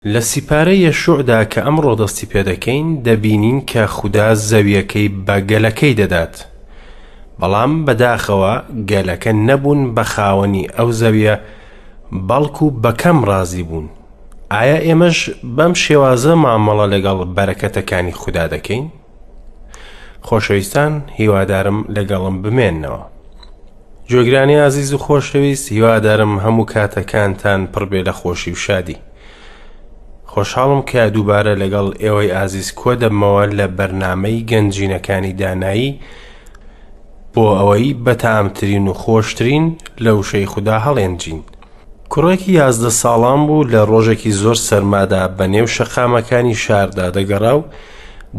لە سیپارەی یەشوعدا کە ئەمڕۆ دەستی پێدەکەین، دەبینین کە خودا زەویەکەی بە گەلەکەی دەدات. بەڵام بەداخەوە گەلەکە نەبوون بە خاوەنی ئەو زەویە، بەڵکو بە کەم ڕازی بوون. ئایا ئێمەش بەم شێوازە مامەڵە لەگەڵ بەرەکەتەکانی خودا دەکەین؟ خۆشەویستان هیوادارم لەگەڵم بمێننەوە. گوێگرانی ئازیز و خۆشەویست هیوادارم هەموو کاتەکانتان پڕ بێ لە خۆشی و شادی. خۆشحاڵم کە دووبارە لەگەڵ ئێوەی ئازیز کۆ دەبمەوە لە بەرنامەی گەنجینەکانی دانایی بۆ ئەوەی بەتامترین و خۆشترین لە وشەی خودا هەڵێنجین. کوڕێکی 11 ساڵان بوو لە ڕۆژێکی زۆر سەرمادا بە نێو شەقامەکانی شاردا دەگەڕا و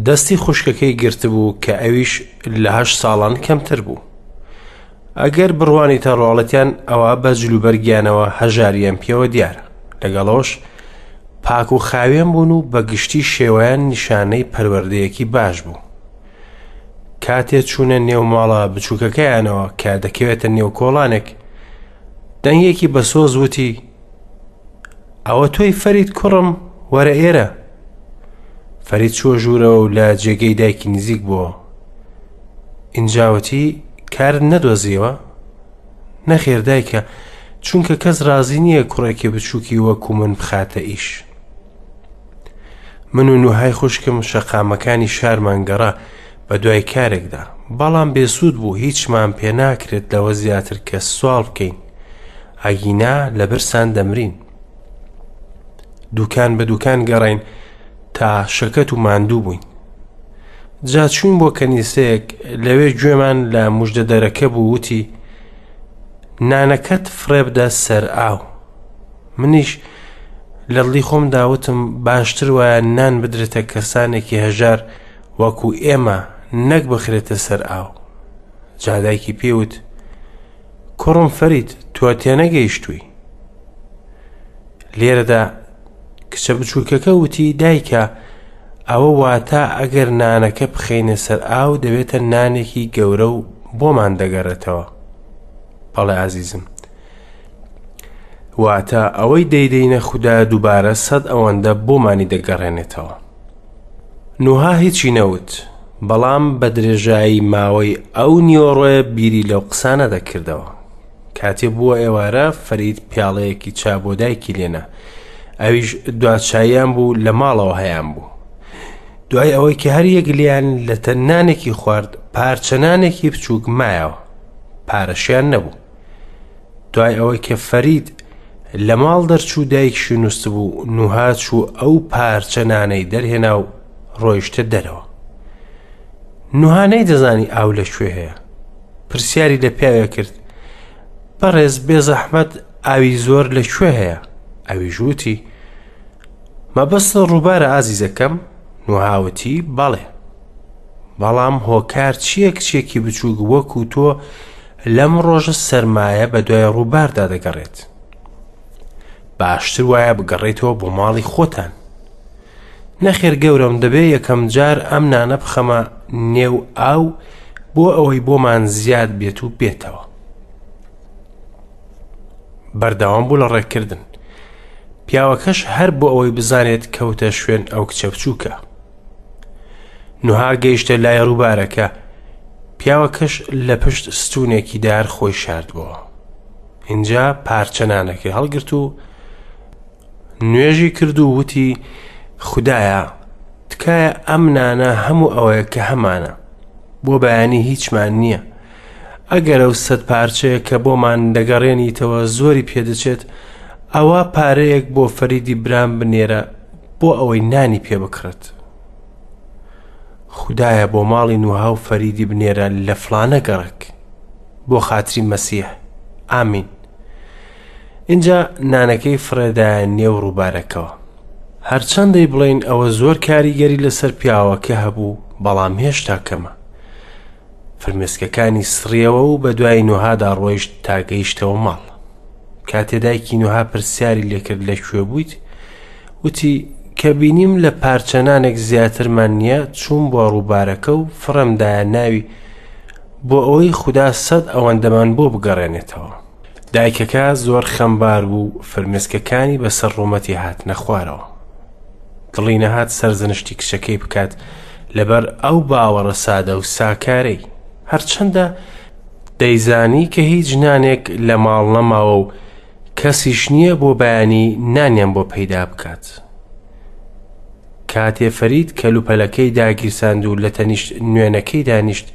دەستی خوشکەکەی گرتبوو کە ئەویش لە هەشت ساڵان کەمتر بوو. ئەگەر بڕوانیتە ڕواڵەتیان ئەوا بە جلوبەرگیانەوە هەژاریان پێوە دیارە. لەگەڵەوەش پاک و خاوێن بوون و بە گشتی شێوەیان نیشانەی پەروەردەیەکی باش بوو. کاتێ چوونە نێو ماڵە بچووکەکەیانەوە کە دەکەوێتە نێو کۆڵانێک، دەنگێکی بەسۆز وتی ئەوە تۆی فەرید کوڕم وەرە ئێرە. فەرید چووە ژوورەوە و لە جێگەی دایکی نزیک بووە. ئینجا وتی کارت نەدۆزیەوە؟ نەخێر دایکە، چونکە کەس ڕازی نییە کوڕێکی بچووکی وەکو من بخاتە ئیش. من و نوهای خوشکم شەقامەکانی شارمان گەڕا بە دوای کارێکدا، بەڵام بێسوود بوو هیچمان پێ ناکرێت لەوە زیاتر کە سواڵ بکەین، ئەگینا لە برسان دەمرین. دوکان بە دوکان گەڕین تا شەکەت و ماندوو بووین. جا چوین بۆ کەنیسەیەک، لەوێ گوێمان لە مژدەدەرەکە بوو وتی نانەکەت فڕێبدە سەر ئاو. منیش لە دڵی خۆمدا وتم باشتر وایە نان بدرێتە کەسانێکی هەژار وەکو ئێمە نەک بخرێتە سەر ئاو. جا دایکی پێی وت کوڕم فەرید تۆ تێنەگەیشتووی. لێرەدا کچە بچووکەکە وتی دایکە ئەوە واتە ئەگەر نانەکە بخەینە سەر ئاو دەبێتە نانێکی گەورە و بۆمان دەگەڕێتەوە. بەڵێ ئازیزم، واتە ئەوەی دەیدەینە خودا دووبارە سەد ئەوەندە بۆمانی دەگەڕێنێتەوە. نوها هیچی نەوت، بەڵام بە درێژایی ماوەی ئەو نیوەڕۆیە بیری لەو قسانە دەکردەوە. کاتێ بووە ئێوارە فەرید پیاڵەیەکی چا بۆ دایکی لێنا. ئەویش دوا چاییان بوو لە ماڵەوە هەیان بوو. دوای ئەوەی کە هەر یەک لێیان لەتە نانێکی خوارد، پارچە نانێکی بچووک مایەوە. پارەشیان نەبوو. دوای ئەوەی کە فەرید لە ماڵ دەرچوو دایکشی نووسبوو، نوها چوو ئەو پارچە نانەی دەرهێنا و ڕۆیشتە دەرەوە. نوها نەیدەزانی ئاو لە کوێ هەیە. پرسیاری لە پیاوێ کرد بەڕێز بێزەحمەت ئاوی زۆر لە کوێ هەیە؟ ئەویش وتی مەبەست ڕووبارە ئازیزەکەم؟ نوها وتی بەڵێ. بەڵام هۆکار چییە کچێکی بچووک وەکو تۆ لەم ڕۆژە سەرمایە بە دوای ڕووباردا دەگەڕێت؟ باشتر وایە بگەڕێیتەوە بۆ ماڵی خۆتان. نەخێر گەورەم دەبێ یەکەم جار ئەم نانە بخەمە نێو ئاو بۆ ئەوەی بۆمان زیاد بێت و بێتەوە. بەردەوام بوو لە ڕێککردن. پیاوەکەش هەر بۆ ئەوەی بزانێت کەوتە شوێن ئەو کچە بچووکە. نوها گەیشتە لای ڕووبارەکە، پیاوەکەش لە پشت ستوونێکی دار خۆی شاردبۆوە. ئینجا پارچە نانەکەی هەڵگرت و نوێژی کرد و وتی خودایە تکایە ئەم نانە هەموو ئەوەیە کە هەمانە بۆ بەیانی هیچمان نییە ئەگەر ئەو سەد پارچەیە کە بۆمان دەگەڕێنیتەوە زۆری پێدەچێت ئەوە پارەیەک بۆ فەریدی برام بنێرە بۆ ئەوەی نانی پێ بکڕێت خودایە بۆ ماڵی نوها و فەریدی بنێرە لە فڵانە گەڕەک بۆ خاتری مەسیح ئامین ئینجا نانەکەی فڕێدایە نێو ڕووبارەکەوە. هەرچەندەی بڵێین ئەوە زۆر کاریگەری لەسەر پیاوەکە هەبوو، بەڵام هێشتا کەمە. فرمێسکەکانی سڕیەوە و بە دوای نوهادا ڕۆیشت تا گەیشتەوە ماڵ. کاتێ دایکی نوها پرسیاری لێکرد لە کوێ بوویت، وتی کە بینیم لە پارچە نانێک زیاترمان نییە، چووم بۆ ڕووبارەکە و فڕێم دایە ناوی بۆ ئەوەی خودا سەد ئەوەندەمان بۆ بگەڕێنێتەوە. دایکەکە زۆر خەمبار بوو و فرمێسکەکانی بەسەر ڕوومەتی هاتنە خوارەوە. دڵی نەهات سەرزەنشتی کچەکەی بکات لەبەر ئەو باوەڕە سادە و ساکارەی. هەرچەندە دەیزانی کە هیچ نانێک لە ماڵ نەماوە و کەسیش نییە بۆ بەیانی نانیان بۆ پەیدا بکات. کاتێ فەرید کەلوپەلەکەی داگیرساند و لە تەنیشت نوێنەکەی دانیشت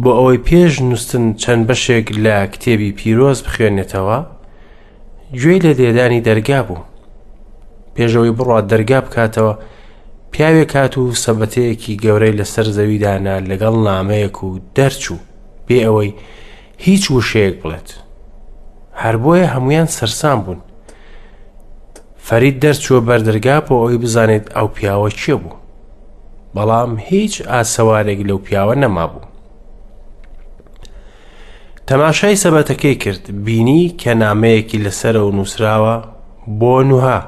بۆ ئەوەی پێش نووستن چەند بەشێک لە کتێبی پیرۆز بخوێنێتەوە، گوێی لە لێدانی دەرگا بوو. پێشەوەی بڕات دەرگا بکاتەوە، پیاوێک هات و سەبەتەیەکی گەورەی لەسەر زەوی دانا لەگەڵ نامەیەک و دەرچوو بێ ئەوەی هیچ وشەیەک بڵێت. هەر بۆیە هەمویان سەرسام بوون. فەرید دەرچووە بەردەرگا بۆ ئەوەی بزانێت ئەو پیاوە کێ بوو. بەڵام هیچ ئاسەوارێک لەو پیاوە نەمابوو. تەماشای سەبەتەکەی کرد، بینی کە نامەیەکی لەسەرەوە نووسراوە بۆ نوها.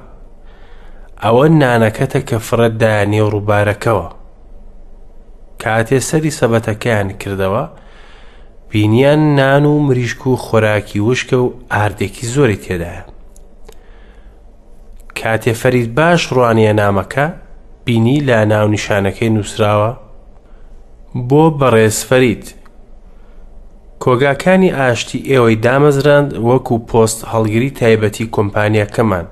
ئەوە نانەکەتە کە فڕێت دایە نێو ڕووبارەکەوە. کاتێ سەری سەبەتەکەیان کردەوە، بینیان نان و مریشک و خۆراکی وشکە و ئاردێکی زۆری تێدایە. کاتێ فەرید باش ڕوانیە نامەکە، بینی لە ناونیشانەکەی نووسراوە بۆ بەڕێز فەرید. کۆگاکانی ئاشتی ئێوەی دامەزراند وەکو پۆست هەڵگری تایبەتی کۆمپانیاکەمان.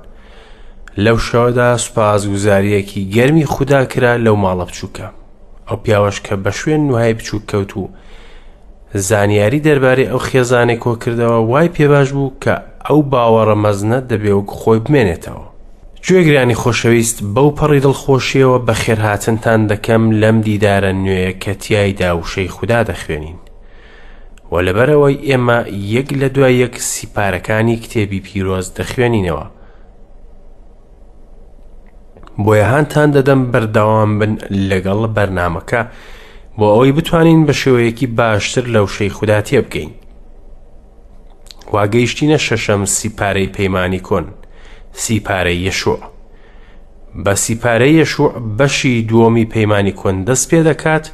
لەو شەوەدا سوپاسگوزارییەکی گەرمی خودا کرا لەو ماڵە بچووکە. ئەو پیاوەش کە بە شوێن نوهای بچووک کەوت و زانیاری دەربارەی ئەو خێزانەی کۆکردەوە وای پێباش بوو کە ئەو باوەڕە مەزنە دەبێ وەک خۆی بمێنێتەوە. گوێگرانی خۆشەویست بەو پەڕی دڵخۆشیەوە بەخێرهاتنتان دەکەم لەم دیدارە نوێیە کە تیایدا وشەی خودا دەخوێنین. و لەبەرئەوەی ئێمە یەک لە دوای یەک سیپارەکانی کتێبی پیرۆز دەخوێنینەوە، بۆیە هانتان دەدەم بەردەوام بن لەگەڵ بەرنامەکە بۆ ئەوەی بتوانین بە شێوەیەکی باشتر لە وشەی خودا تێبگەین. وا گەیشتینە شەشەم سیپارەی پەیمانی کۆن، سیپارەی یەشوع. بە سیپارەی یەشوع بەشی دووەمی پەیمانی کۆن دەست پێ دەکات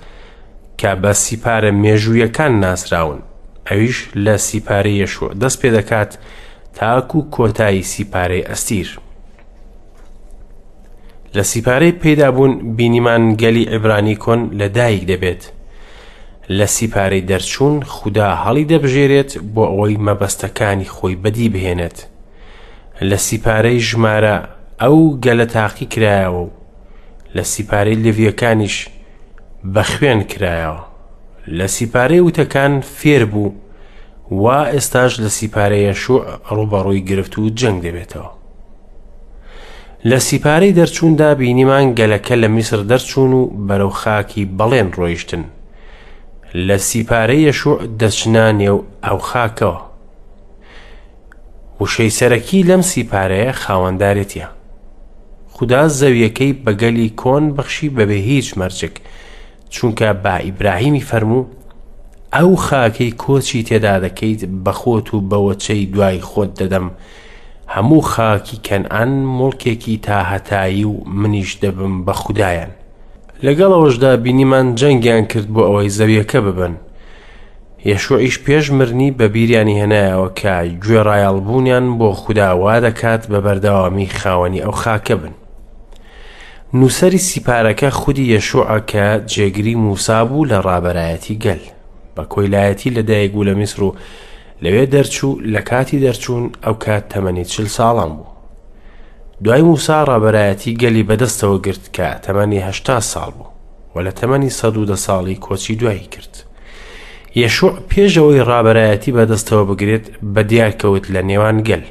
کە بە سیپارە مێژوویەکان ناسراون، ئەویش لە سیپارەی یەشوع دەست پێ دەکات تاکو کۆتایی سیپارەی ئەستیر. لە سیپارەی پەیدابوون بینیمان گەلی عیبرانی کۆن لە دایک دەبێت. لە سیپارەی دەرچوون خودا هەڵی دەبژێرێت بۆ ئەوەی مەبەستەکانی خۆی بەدی بهێنێت. لە سیپارەی ژمارە ئەو گەلە تاقی کرایەوە و لە سیپارەی لێڤییەکانیش بە خوێن کرایەوە. لە سیپارەی وتەکان فێر بوو وا ئێستاش لە سیپارەی یەشوع ڕووبەڕووی گرفت و جەنگ دەبێتەوە. لە سیپارەی دەرچووندا بینیمان گەلەکە لە میسر دەرچوون و بەرەو خاکی بەڵێن ڕۆیشتن. لە سیپارەی یەشوع دەچنە نێو ئەو خاکەوە. وشەی سەرەکی لەم سیپارەیە خاوەندارێتیە. خودا زەویەکەی بە گەلی کۆن بەخشی بەبێ هیچ مەرجێک، چونکە بە ئیبراهیمی فەرموو، ئەو خاکەی کۆچی تێدا دەکەیت بە خۆت و بە وەچەی دوای خۆت دەدەم، هەموو خاکی کەنعان موڵکێکی تاهەتایی و منیش دەبم بە خودایان. لەگەڵ ئەوەشدا بینیمان جەنگیان کرد بۆ ئەوەی زەویەکە ببەن. یەشوعیش پێش مرنی بە بیریانی هێنایەوە کە گوێڕایەڵبوونیان بۆ خودا وا دەکات بە بەردەوامی خاوەنی ئەو خاکە بن. نووسەری سیپارەکە خودی یەشوعە کە جێگری موسا بوو لە ڕابەرایەتی گەل. بە کۆیلایەتی لەدایک بوو لە میسر و لەوێ دەرچوو، لە کاتی دەرچوون ئەو کات تەمەنی 40 ساڵان بوو. دوای موسا ڕابەرایەتی گەلی بەدەستەوە گرت کە تەمەنی 80 ساڵ بوو و لە تەمەنی 110 ساڵی کۆچی دوایی کرد. یەشوع پێش ئەوەی ڕابەرایەتی بەدەستەوە بگرێت بە دیار کەوت لە نێوان گەل.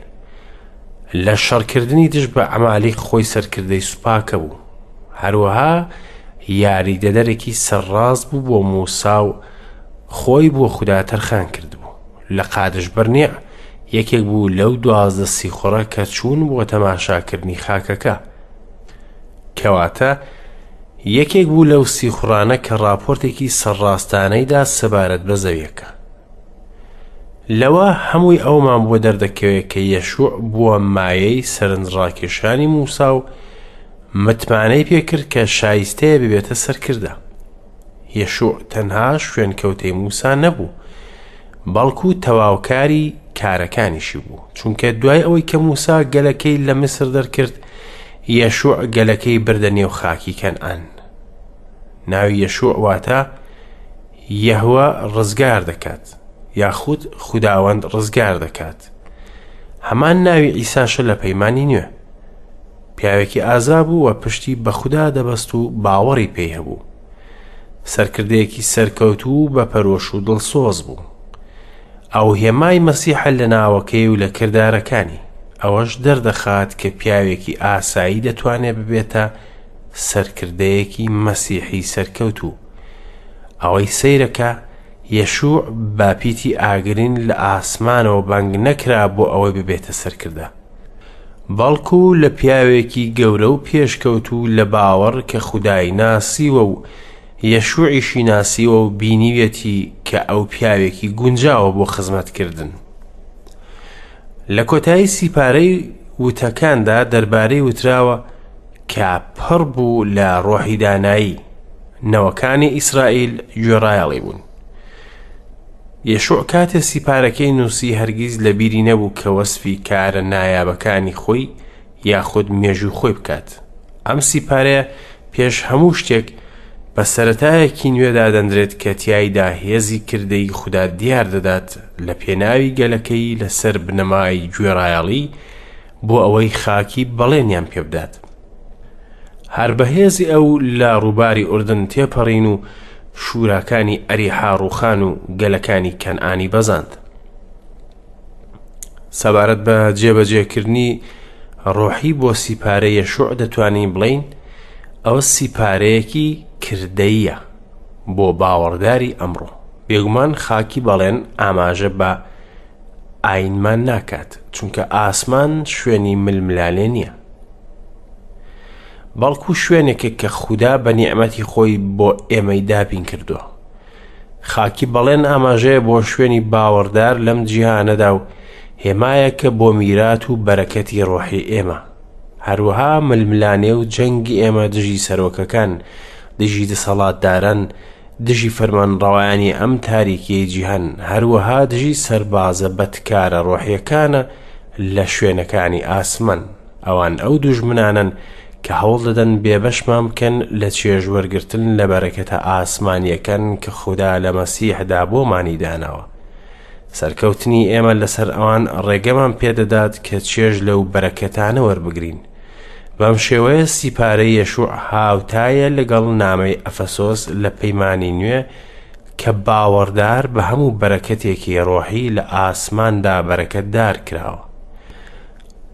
لە شەڕکردنی دژ بە عەمالیق خۆی سەرکردەی سوپاکە بوو. هەروەها یاریدەدەرێکی سەرڕاست بوو بۆ موسا و خۆی بۆ خودا تەرخان کردبوو. لە قادش بەرنیع یەکێک بوو لەو 12 سیخوڕە کە چوون بۆ تەماشاکردنی خاکەکە. کەواتە یەکێک بوو لەو سیخوڕانە کە ڕاپۆرتێکی سەرڕاستانەی دا سەبارەت بە زەویەکە. لەوە هەمووی ئەومان بۆ دەردەکەوێت کە یەشوع بووە مایەی سەرنجڕاکێشانی موسا و متمانەی پێکرد کە شایستەیە ببێتە سەرکردە. یەشوع تەنها شوێنکەوتەی موسا نەبوو، بەڵکو تەواوکاری کارەکانیشی بوو، چونکە دوای ئەوەی کە موسا گەلەکەی لە میسر دەرکرد، یەشوع گەلەکەی بردە نێو خاکی کەنعان. ناوی یەشوع واتە یەهوە ڕزگار دەکات یاخود خوداوەند ڕزگار دەکات. هەمان ناوی عیساشە لە پەیمانی نوێ. پیاوێکی ئازا بوو و پشتی بە خودا دەبەست و باوەڕی پێی هەبوو. سەرکردەیەکی سەرکەوتوو و بە پەرۆش و دڵسۆز بوو. ئەو هێمای مەسیحە لە ناوەکەی و لە کردارەکانی. ئەوەش دەردەخات کە پیاوێکی ئاسایی دەتوانێت ببێتە سەرکردەیەکی مەسیحی سەرکەوتوو. ئەوەی سەیرە کە یەشوع بە پیتی ئاگرین لە ئاسمانەوە بانگ نەکرا بۆ ئەوەی ببێتە سەرکردە. بەڵکو لە پیاوێکی گەورە و پێشکەوتوو لە باوەڕ کە خودای ناسیوە و یەشوعیشی ناسیوە و بینیویەتی کە ئەو پیاوێکی گونجاوە بۆ خزمەتکردن. لە کۆتایی سیپارەی وتەکاندا دەربارەی وتراوە کە پڕ بوو لە ڕۆحی دانایی، نەوەکانی ئیسرائیل گوێڕایەڵی بوون. یەشوع کاتێ سیپارەکەی نووسی هەرگیز لە بیری نەبوو کە وەسفی کارە نایابەکانی خۆی یاخود مێژوو خۆی بکات. ئەم سیپارەیە پێش هەموو شتێک بە سەرەتایەکی نوێ دادەنرێت کە تیایدا هێزی کردەی خودا دیار دەدات لە پێناوی گەلەکەی لەسەر بنەمای گوێڕایەڵی بۆ ئەوەی خاکی بەڵێنیان پێبدات. هەر بە هێزی ئەو لە ڕووباری ئوردن تێپەڕین و شوراکانی ئەریحا ڕووخان و گەلەکانی کەنعانی بەزاند. سەبارەت بە جێبەجێکردنی ڕۆحی بۆ سیپارە یەشوع دەتوانین بڵێین ئەوە سیپارەیەکی کردەیە بۆ باوەڕداری ئەمڕۆ. بێگومان خاکی بەڵێن ئاماژە بە ئاینمان ناکات چونکە ئاسمان شوێنی ململانێ نییە بەڵکو شوێنێکە کە خودا بە نیعمەتی خۆی بۆ ئێمەی دابین کردووە خاکی بەڵێن ئاماژەیە بۆ شوێنی باوەڕدار لەم جیهانەدا و هێمایەکە بۆ میرات و بەرەکەتی ڕۆحی ئێمە هەروەها ململانێ و جەنگی ئێمە دژی سەرۆکەکان دژی دەسەڵاتداران دژی فەرمانڕەوایانی ئەم تاریکیەی جیهان، هەروەها دژی سەربازە بەدکارە ڕۆحیەکانە لە شوێنەکانی ئاسمان. ئەوان ئەو دوژمنانەن کە هەوڵ دەدەن بێبەشمان بکەن لە چێژ وەرگرتن لە بەرەکەتە ئاسمانیەکان کە خودا لە مەسیحدا بۆمانی داناوە. سەرکەوتنی ئێمە لەسەر ئەوان ڕێگەمان پێدەدات کە چێژ لەو بەرەکەتانە وەربگرین. بەم شێوەیە سیپارەی یەشوع هاوتایە لەگەڵ نامەی ئەفەسۆس لە پەیمانی نوێ کە باوەڕدار بە هەموو بەرەکەتێکی ڕۆحی لە ئاسماندا بەرەکەتدار کراوە.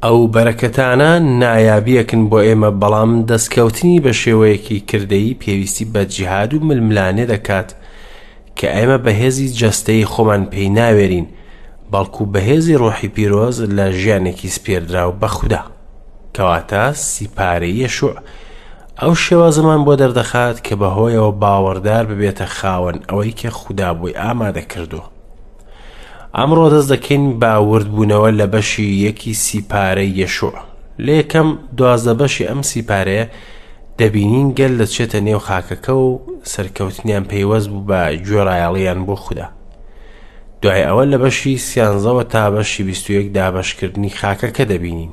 ئەو بەرەکەتانە نایابیەکن بۆ ئێمە بەڵام دەستکەوتنی بە شێوەیەکی کردەیی پێویستی بە جیهاد و ململانێ دەکات کە ئێمە بە هێزی جەستەیی خۆمان پێی ناوێرین بەڵکو بە هێزی ڕۆحی پیرۆز لە ژیانێکی سپێردراو بە خودا. کەواتە سیپارەی یەشوع ئەو شێوازەمان بۆ دەردەخات کە بەهۆیەوە باوەڕدار ببێتە خاوەن ئەوەی کە خودا بۆی ئامادە کردووە. ئەمڕۆ دەست دەکەین بە وردبوونەوە لە بەشی یەکی سیپارەی یەشوع. لە یەکەم 12 بەشی ئەم سیپارەیە دەبینین گەل دەچێتە نێو خاکەکە و سەرکەوتنیان پەیوەست بوو بە گوێڕایەڵیان بۆ خودا. دوای ئەوە لە بەشی سیانزەوە تا بەشی 21 دابەشکردنی خاکەکە دەبینین.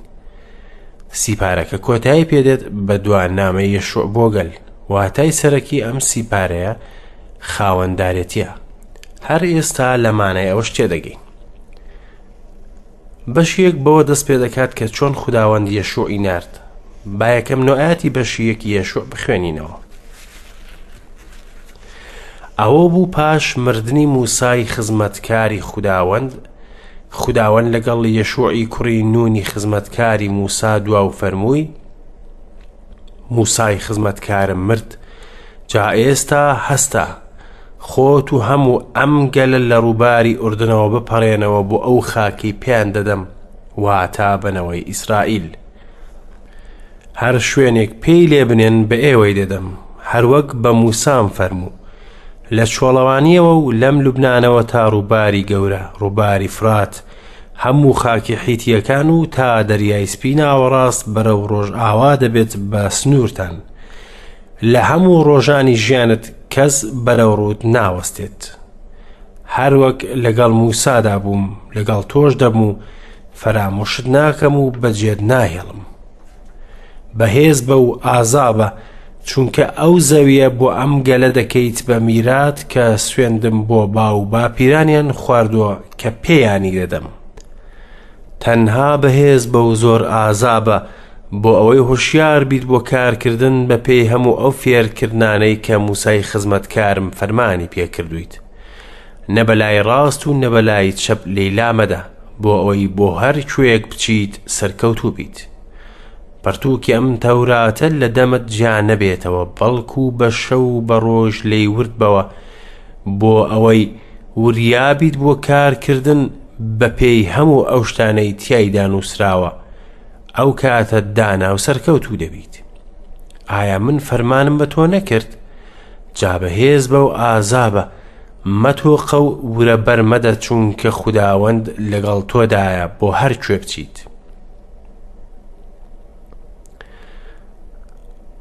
سیپارەکە کۆتایی پێدێت بە دوا نامەی یەشوع بۆ گەل. واتای سەرەکی ئەم سیپارەیە خاوەندارێتیە. هەر ئێستا لە مانای ئەوەش تێدەگەین. بەشی یەک بەوە دەست پێ دەکات کە چۆن خوداوەند یەشوعی نارد. با یەکەم نۆئاتی بەشی یەکی یەشوع بخوێنینەوە. ئەوە بوو پاش مردنی موسای خزمەتکاری خوداوەند، خوداوەند لەگەڵ یەشوعی کوڕی نونی خزمەتکاری موسا دوا و فەرمووی، موسای خزمەتکارم مرد، جا ئێستا هەستە، خۆت و هەموو ئەم گەلە لە ڕووباری ئوردنەوە بپەڕێنەوە بۆ ئەو خاکەی پێیان دەدەم، واتا بە نەوەی ئیسرائیل. هەر شوێنێک پێی لێ بنێن بە ئێوەی دەدەم، هەروەک بە موسام فەرموو. لە چۆڵەوانییەوە و لەم لوبنانەوە تا ڕووباری گەورە، ڕووباری فرات، هەموو خاکی حیتییەکان و تا دەریای سپی ناوەڕاست بەرەو ڕۆژئاوا دەبێت بە سنوورتان. لە هەموو ڕۆژانی ژیانت کەس بەرەو ڕووت ناوەستێت. هەروەک لەگەڵ موسادا بووم، لەگەڵ تۆش دەبم و فەرامۆشت ناکەم و بەجێت ناهێڵم. بەهێز بە و ئازا بە، چونکە ئەو زەوییە بۆ ئەم گەلە دەکەیت بە میرات کە سوێندم بۆ باو باپیرانیان خواردووە کە پێیانی دەدەم. تەنها بەهێز بە و زۆر ئازا بە، بۆ ئەوەی هۆشیار بیت بۆ کارکردن بە پێی هەموو ئەو فێرکردنانەی کە موسای خزمەتکارم فەرمانی پێکردوویت. نە بەلای ڕاست و نە بەلای چەپ لێی لامەدە، بۆ ئەوەی بۆ هەر کوێیەک بچیت سەرکەوتوو بیت. پەرتووکی ئەم تەوراتە لە دەمت جیا نەبێتەوە، بەڵکو بە شەو و بە ڕۆژ لێی ورد بەوە، بۆ ئەوەی وریا بیت بۆ کارکردن بە پێی هەموو ئەو شتانەی تیایدا نووسراوە، ئەو کاتە دانا و سەرکەوتوو دەبیت. ئایا من فەرمانم بە تۆ نەکرد؟ جا بەهێز بە و ئازا بە، مەتۆقە و ورە بەرمەدە، چونکە خوداوەند لەگەڵ تۆدایە بۆ هەر کوێ بچیت.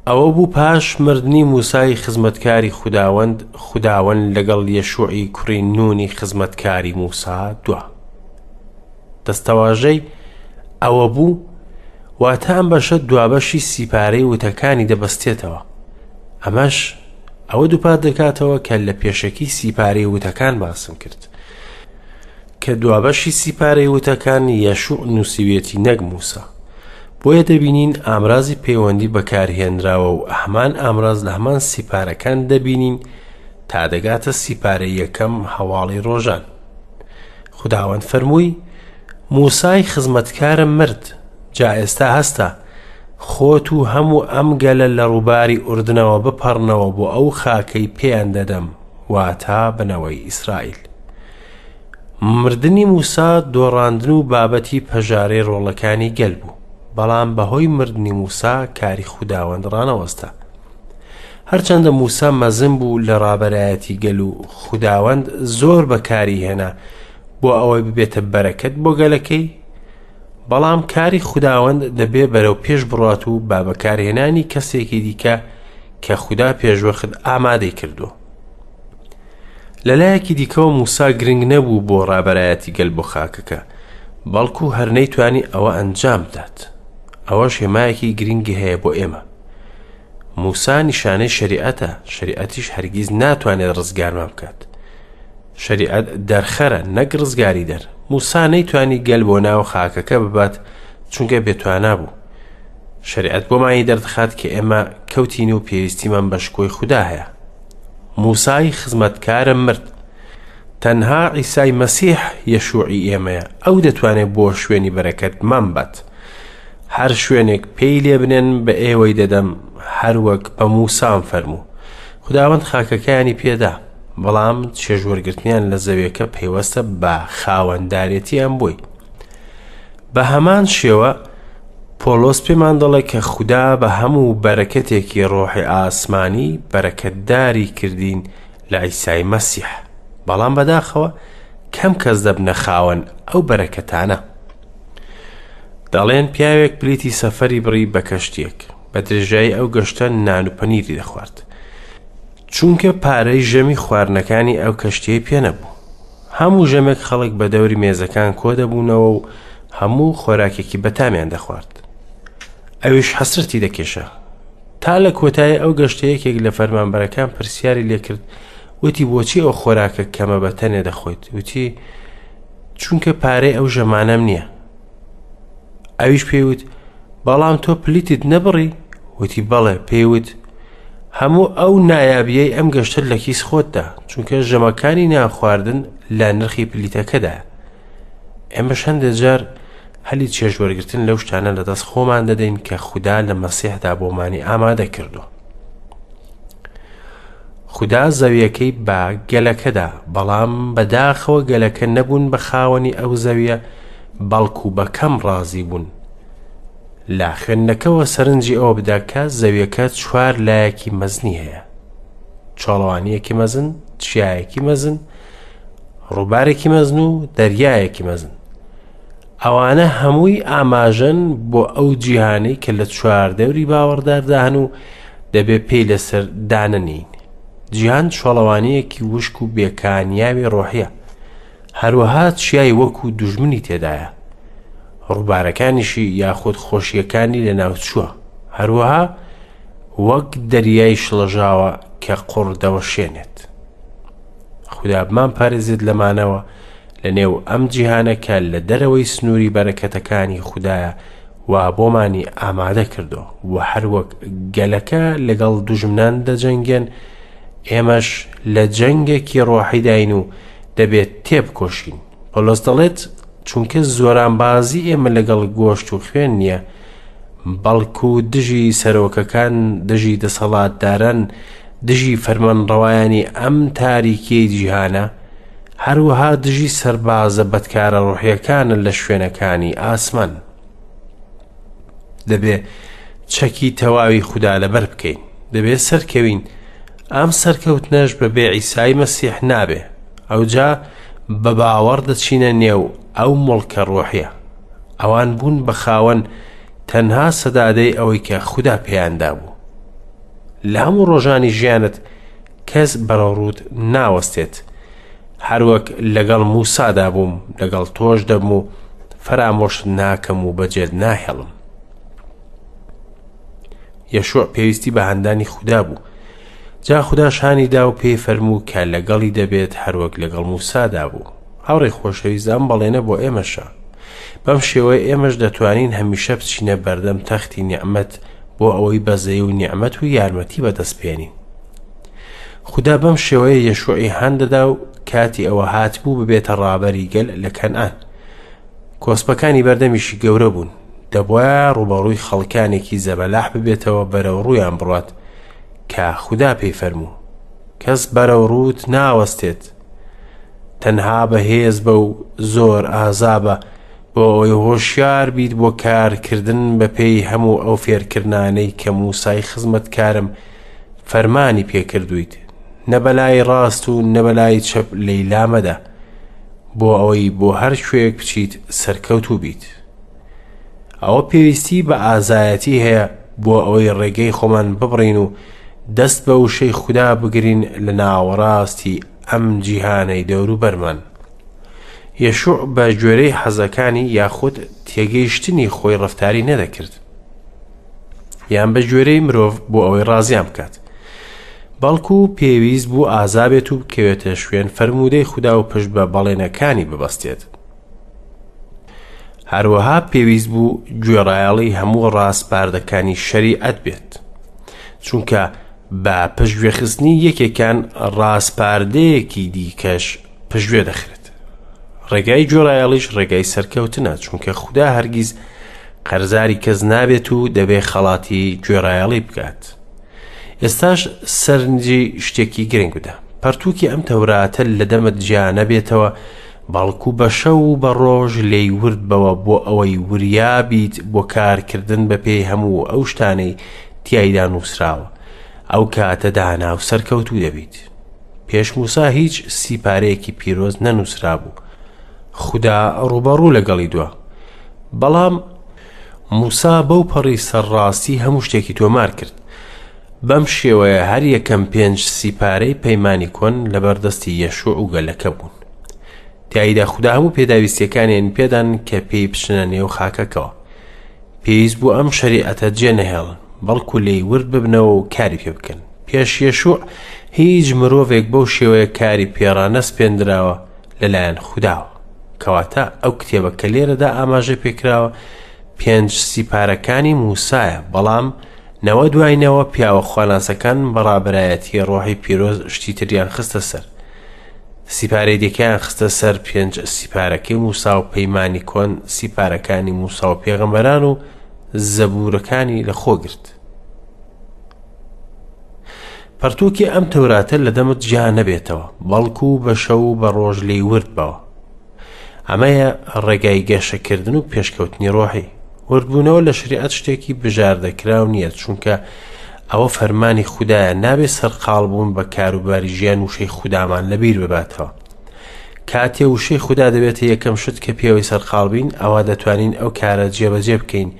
ئەوە بوو پاش مردنی موسای خزمەتکاری خوداوەند، خوداوەند لەگەڵ یەشوعی کوڕی نونی خزمەتکاری موسا دوا. دەستەواژەی ئەوە بوو واتە ئەم بەشە دوابەشی سیپارەی وتەکانی دەبەستێتەوە. ئەمەش ئەوە دووپات دەکاتەوە کە لە پێشەکی سیپارەی وتەکان باسم کرد. کە دوابەشی سیپارەی وتەکان یەشوع نووسیویەتی نەک موسا. بۆیە دەبینین ئامرازی پەیوەندی بەکارهێنراوە و هەمان ئامراز لە هەمان سیپارەکان دەبینین تا دەگاتە سیپارەی یەکەم هەواڵی ڕۆژان. خوداوەند فەرمووی موسای خزمەتکارم مرد، جا ئێستا هەستە، خۆت و هەموو ئەم گەلە لە ڕووباری ئوردنەوە بپەڕنەوە بۆ ئەو خاکەی پێیان دەدەم، واتا بنەوەی ئیسرائیل. مردنی موسا دۆڕاندن و بابەتی پەژارەی ڕۆڵەکانی گەل بوو، بەڵام بەهۆی مردنی موسا کاری خوداوەند ڕانەوەستا. هەرچەندە موسا مەزن بوو لە ڕابەرایەتی گەل و خوداوەند زۆر بەکاری هێنا بۆ ئەوەی ببێتە بەرەکەت بۆ گەلەکەی، بەڵام کاری خوداوەند دەبێ بەرەو پێش بڕات و با بەکارهێنانی کەسێکی دیکە کە خودا پێشوەخت ئامادەی کردووە. لەلایەکی دیکەوە موسا گرنگ نەبوو بۆ ڕابەرایەتی گەل بۆ خاکەکە، بەڵکو هەر نەیتوانی ئەوە ئەنجام بدات. ئەوەش هێمایەکی گرنگی هەیە بۆ ئێمە. موسا نیشانەی شەریعەتە، شەریعەتیش هەرگیز ناتوانێت ڕزگارمان بکات. شەریعەت دەرخەرە نەک ڕزگاری دەر. موسا نەیتوانی گەل بۆ ناو خاکەکە ببات چونکە بێتوانا بوو. شەریعەت بۆمانی دەردەخات کە ئێمە کەوتین و پێویستیمان بە شکۆی خودا هەیە. موسای خزمەتکارم مرد. تەنها عیسای مەسیح یەشوعی ئێمەیە، ئەو دەتوانێت بۆ شوێنی بەرەکەتمان بات. هەر شوێنێک پێی لێ بنێن بە ئێوەی دەدەم، هەر وەک بە موسام فەرموو. خوداوەند خاکەکەیانی پێدا، بەڵام چێژوەرگرتنیان لە زەویەکە پەیوەستە بە خاوەندارێتیان بۆی. بە هەمان شێوە پۆڵۆس پێمان دەڵێ کە خودا بە هەموو بەرەکەتێکی ڕۆحی ئاسمانی بەرەکەتداری کردین لە عیسای مەسیح. بەڵام بەداخەوە کەم کەس دەبنە خاوەن ئەو بەرەکەتانە. دەڵێن پیاوێک پلیتی سەفەری بڕی بە کەشتیەک. بە درێژایی ئەو گەشتە نان و پەنیری دەخوارد. چونکە پارەی ژەمی خواردنەکانی ئەو کەشتیەی پێ نەبوو. هەموو ژەمێک خەڵک بە دەوری مێزەکان کۆ دەبوونەوە و هەموو خۆراکێکی بەتامیان دەخوارد. ئەویش حەسرەتی دەکێشا. تا لە کۆتایی ئەو گەشتە یەکێک لە فەرمانبەرەکان پرسیاری لێکرد وتی بۆچی ئەو خۆراکە کەمە بە تەنێ دەخۆیت؟ وتی چونکە پارەی ئەو ژەمانەم نییە. ئەویش پێی وت بەڵام تۆ پلیتت نەبڕی؟ وتی بەڵێ. پێی وت هەموو ئەو نایابیەی ئەم گەشتە لە کیس خۆتدا، چونکە ژەمەکانی نانخواردن لە نرخی پلیتەکەدایە. ئێمەش هەندێک جار هەلی چێژوەرگرتن لەو شتانە لەدەست خۆمان دەدەین کە خودا لە مەسیحدا بۆمانی ئامادە کردووە. خودا زەویەکەی بە گەلەکەدا، بەڵام بەداخەوە گەلەکە نەبوون بە خاوەنی ئەو زەویە، بەڵکو بە کەم ڕازی بوون. لە خوێندنەکەوە سەرنجی ئەوە بدە کە زەویەکە چوار لایەکی مەزنی هەیە. چۆڵەوانیەکی مەزن، چیایەکی مەزن، ڕووبارێکی مەزن و دەریایەکی مەزن. ئەوانە هەمووی ئاماژەن بۆ ئەو جیهانەی کە لە چواردەوری باوەڕداردا هەن و دەبێ پێی لەسەر دانەنین. جیهان چۆڵەوانییەکی وشک و بێکانیاوی ڕۆحیە. هەروەها چیای وەکو دوژمنی تێدایە. ڕووبارەکانیشی یاخود خۆشیەکانی لەناوچووە. هەروەها وەک دەریای شڵەژاوە کە قوڕ دەوەشێنێت. خودا بمان پارێزێت لەمانەوە لە نێو ئەم جیهانە کە لە دەرەوەی سنووری بەرەکەتەکانی خودایە وا بۆمانی ئامادە کردووە و هەروەک گەلەکە لەگەڵ دوژمنان دەجەنگێن ئێمەش لە جەنگێکی ڕۆحیداین و دەبێت تێبکۆشین. پۆلۆس دەڵێت چونکە زۆرانبازی ئێمە لەگەڵ گۆشت و خوێن نییە، بەڵکو دژی سەرۆکەکان، دژی دەسەڵاتداران، دژی فەرمانڕەوایانی ئەم تاریکیەی جیهانە، هەروەها دژی سەربازە بەدکارە ڕۆحیەکانە لە شوێنەکانی ئاسمان. دەبێ چەکی تەواوی خودا لەبەر بکەین. دەبێ سەرکەوین. ئەم سەرکەوتنەش بە بێ عیسای مەسیح نابێ. ئەوجا بە باوەڕ دەچینە نێو ئەو مڵکە ڕۆحیە. ئەوان بوون بە خاوەن تەنها سەدادەی ئەوەی کە خودا پێیان دابوو. لە هەموو ڕۆژانی ژیانت کەس بەرەوڕووت ناوەستێت. هەروەک لەگەڵ موسادا بووم لەگەڵ تۆش دەبم و فەرامۆشت ناکەم و بەجێت ناهێڵم. یەشوع پێویستی بە هاندانی خودا بوو. جا خوداش هانی دا و پێی فەرموو کە لەگەڵی دەبێت هەروەک لەگەڵ موسادا بوو. هاوڕێی خۆشەویست ئەم بەڵێنە بۆ ئێمەشە. بەم شێوەیە ئێمەش دەتوانین هەمیشە بچینە بەردەم تەختی نیعمەت بۆ ئەوەی بەزەی و نیعمەت و یارمەتی بەدەست بێنین. خودا بەم شێوەیە یەشوعی هان دەدا و کاتی ئەوە هاتبوو ببێتە ڕابەری گەل لە کەنعان. کۆسپەکانی بەردەمیشی گەورە بوون. دەبوایە ڕووبەڕووی خەڵکانێکی زەبەلاح ببێتەوە بەرەو ڕوویان بڕوات کە خودا پێی فەرموو کەس بەرەو ڕووت ناوەستێت تەنها بەهێز بە و زۆر ئازابە بۆ ئەوەی هۆشیار بیت بۆ کارکردن بە پێی هەموو ئەو فێرکردنانەی کە موسای خزمەتکارم فەرمانی پێکردویت نە بەلای ڕاست و نە بەلای چەپ لێی لامەدە بۆ ئەوەی بۆ هەر کوێیەک بچیت سەرکەوتوو بیت. ئەوە پێویستی بە ئازایەتی هەیە بۆ ئەوەی ڕێگەی خۆمان ببڕین و دەست بە وشەی خودا بگرین لە ناوەڕاستی ئەم جیهانەی دەوروبەرمان. یەشوع بە گوێرەی حەزەکانی یاخود تێگەیشتنی خۆی ڕەفتاری نەدەکرد یان بە گوێرەی مرۆڤ بۆ ئەوەی ڕازیان بکات بەڵکو پێویست بوو ئازابێت و بکەوێتە شوێن فەرموودەی خودا و پشت بە بەڵێنەکانی ببەستێت. هەروەها پێویست بوو گوێڕایەڵی هەموو ڕاسپاردەکانی شەریعەت بێت چونکە بە پشتگوێخستنی یەکێکان ڕاسپاردەیەکی دیکەش پشتگوێ دەخرێت ڕێگای گوێڕایەڵیش ڕێگای سەرکەوتنە چونکە خودا هەرگیز قەرزاری کەس نابێت و دەبێ خەڵاتی گوێڕایەڵی بکات ئێستاش سەرنجی شتێکی گرنگ بدە پەرتووکی ئەم تەوراتە لە دەمت جیا نەبێتەوە بەڵکو بە شەو و بە ڕۆژ لێی ورد بەوە بۆ ئەوەی وریا بیت بۆ کارکردن بە پێی هەموو ئەو شتانەی تیایدا نووسراوە ئەو کاتە دانا و سەرکەوتوو دەبیت پێش موسا هیچ سیپارەیەکی پیرۆز نەنووسرابوو خودا ڕووبەڕوو لەگەڵی دوا بەڵام موسا بەو پەڕی سەرڕاستی هەموو شتێکی تۆمار کرد. بەم شێوەیە هەر یەکەم پێنج سیپارەی پەیمانی کۆن لەبەر دەستی یەشوع و گەلەکە بوون. تیایدا خودا هەموو پێداویستیەکانیان پێدان کە پێی بچنە نێو خاکەکەوە. پێویست بوو ئەم شەریعەتە جێ نەهێڵن، بەڵکو لێی ورد ببنەوە و کاری پێ بکەن. پێش یەشوع هیچ مرۆڤێک بەو شێوەیە کاری پێڕانەسپێندراوە لەلایەن خوداوە. کەواتە ئەو کتێبە کە لێرەدا ئاماژە پێکراوە پێنج سیپارەکانی موسایە بەڵام نەوە دوای نەوە پیاوە خواناسەکان بە ڕابەرایەتی ڕۆحی پیرۆز شتی تریان خستە سەر سیپارەی دیکەیان خستە سەر پێنج سیپارەکەی موسا و پەیمانی کۆن سیپارەکانی موسا و پێغەمبەران و زەبوورەکانی لەخۆ گرت. پەرتووکی ئەم تەوراتە لە دەمت جیا نەبێتەوە، بەڵکو بە شەو و بە ڕۆژ لێی ورد بەوە. ئەمەیە ڕێگای گەشەکردن و پێشکەوتنی ڕۆحی. وردبوونەوە لە شریعەت شتێکی بژاردەکراو نییە، چونکە ئەوە فەرمانی خودایە، نابێ سەرقاڵ بوون بە کاروباری ژیان وشەی خودامان لەبیر بباتەوە. کاتێ وشەی خودا دەبێتە یەکەم شت کە پێوەی سەرقاڵ بین، ئەوا دەتوانین ئەو کارە جێبەجێ بکەین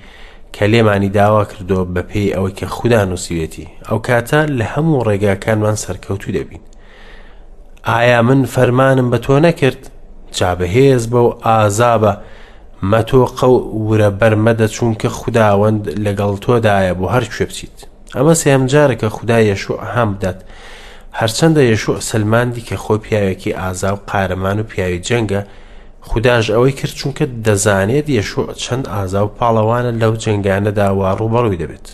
کە لێمانی داوا کردووە بەپێی ئەوەی کە خودا نووسیوێتی، ئەو کاتە لە هەموو ڕێگاکانمان سەرکەوتوو دەبین. ئایا من فەرمانم بە تۆ نەکرد؟ جا بەهێز بە و ئازابە، مەتۆقە و ورە بەرمەدە چونکە خوداوەند لەگەڵ تۆدایە بۆ هەر کوێ بچیت. ئەمە سێهەم جارە کە خودا یەشوع هان بدات. هەرچەندە یەشوع سەلماندی کە خۆی پیاوێکی ئازا و قارەمان و پیاوی جەنگە، خوداش ئەوەی کرد چونکە دەزانێت یەشوع چەند ئازا و پاڵەوانە لەو جەنگانەدا وا ڕووبەڕووی دەبێت.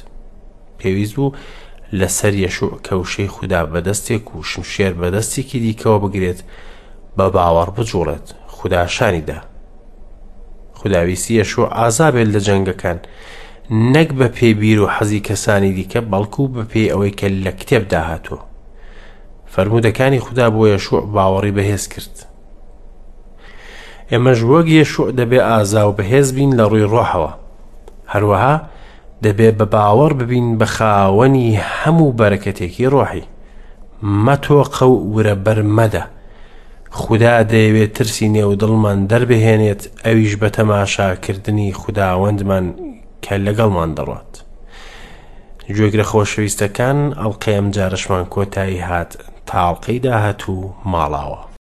پێویست بوو لەسەر یەشوع کە وشەی خودا بە دەستێک و شمشێر بە دەستێکی دیکەوە بگرێت بە باوەڕ بجوڵێت. خودا شانی دا. خودا ویستی یەشوع ئازا بێت لە جەنگەکان، نەک بە پێی بیر و حەزی کەسانی دیکە، بەڵکو بە پێی ئەوەی کە لە کتێبدا هاتووە. فەرموودەکانی خودا بۆ یەشوع باوەڕی بەهێز کرد. ئێمەش وەک یەشوع دەبێ ئازا و بەهێز بین لە ڕووی ڕۆحەوە. هەروەها دەبێ بە باوەڕ ببین بە خاوەنی هەموو بەرەکەتێکی ڕۆحی. مەتۆقە و ورە بەر مەدە. خودا دەیەوێت ترسی نێو دڵمان دەربهێنێت، ئەویش بە تەماشاکردنی خوداوەندمان کە لەگەڵمان دەڕوات. گوێگرە خۆشەویستەکان، ئەڵقەی ئەمجارەشمان کۆتایی هات، تا ئەڵقەی داهاتوو ماڵاوە.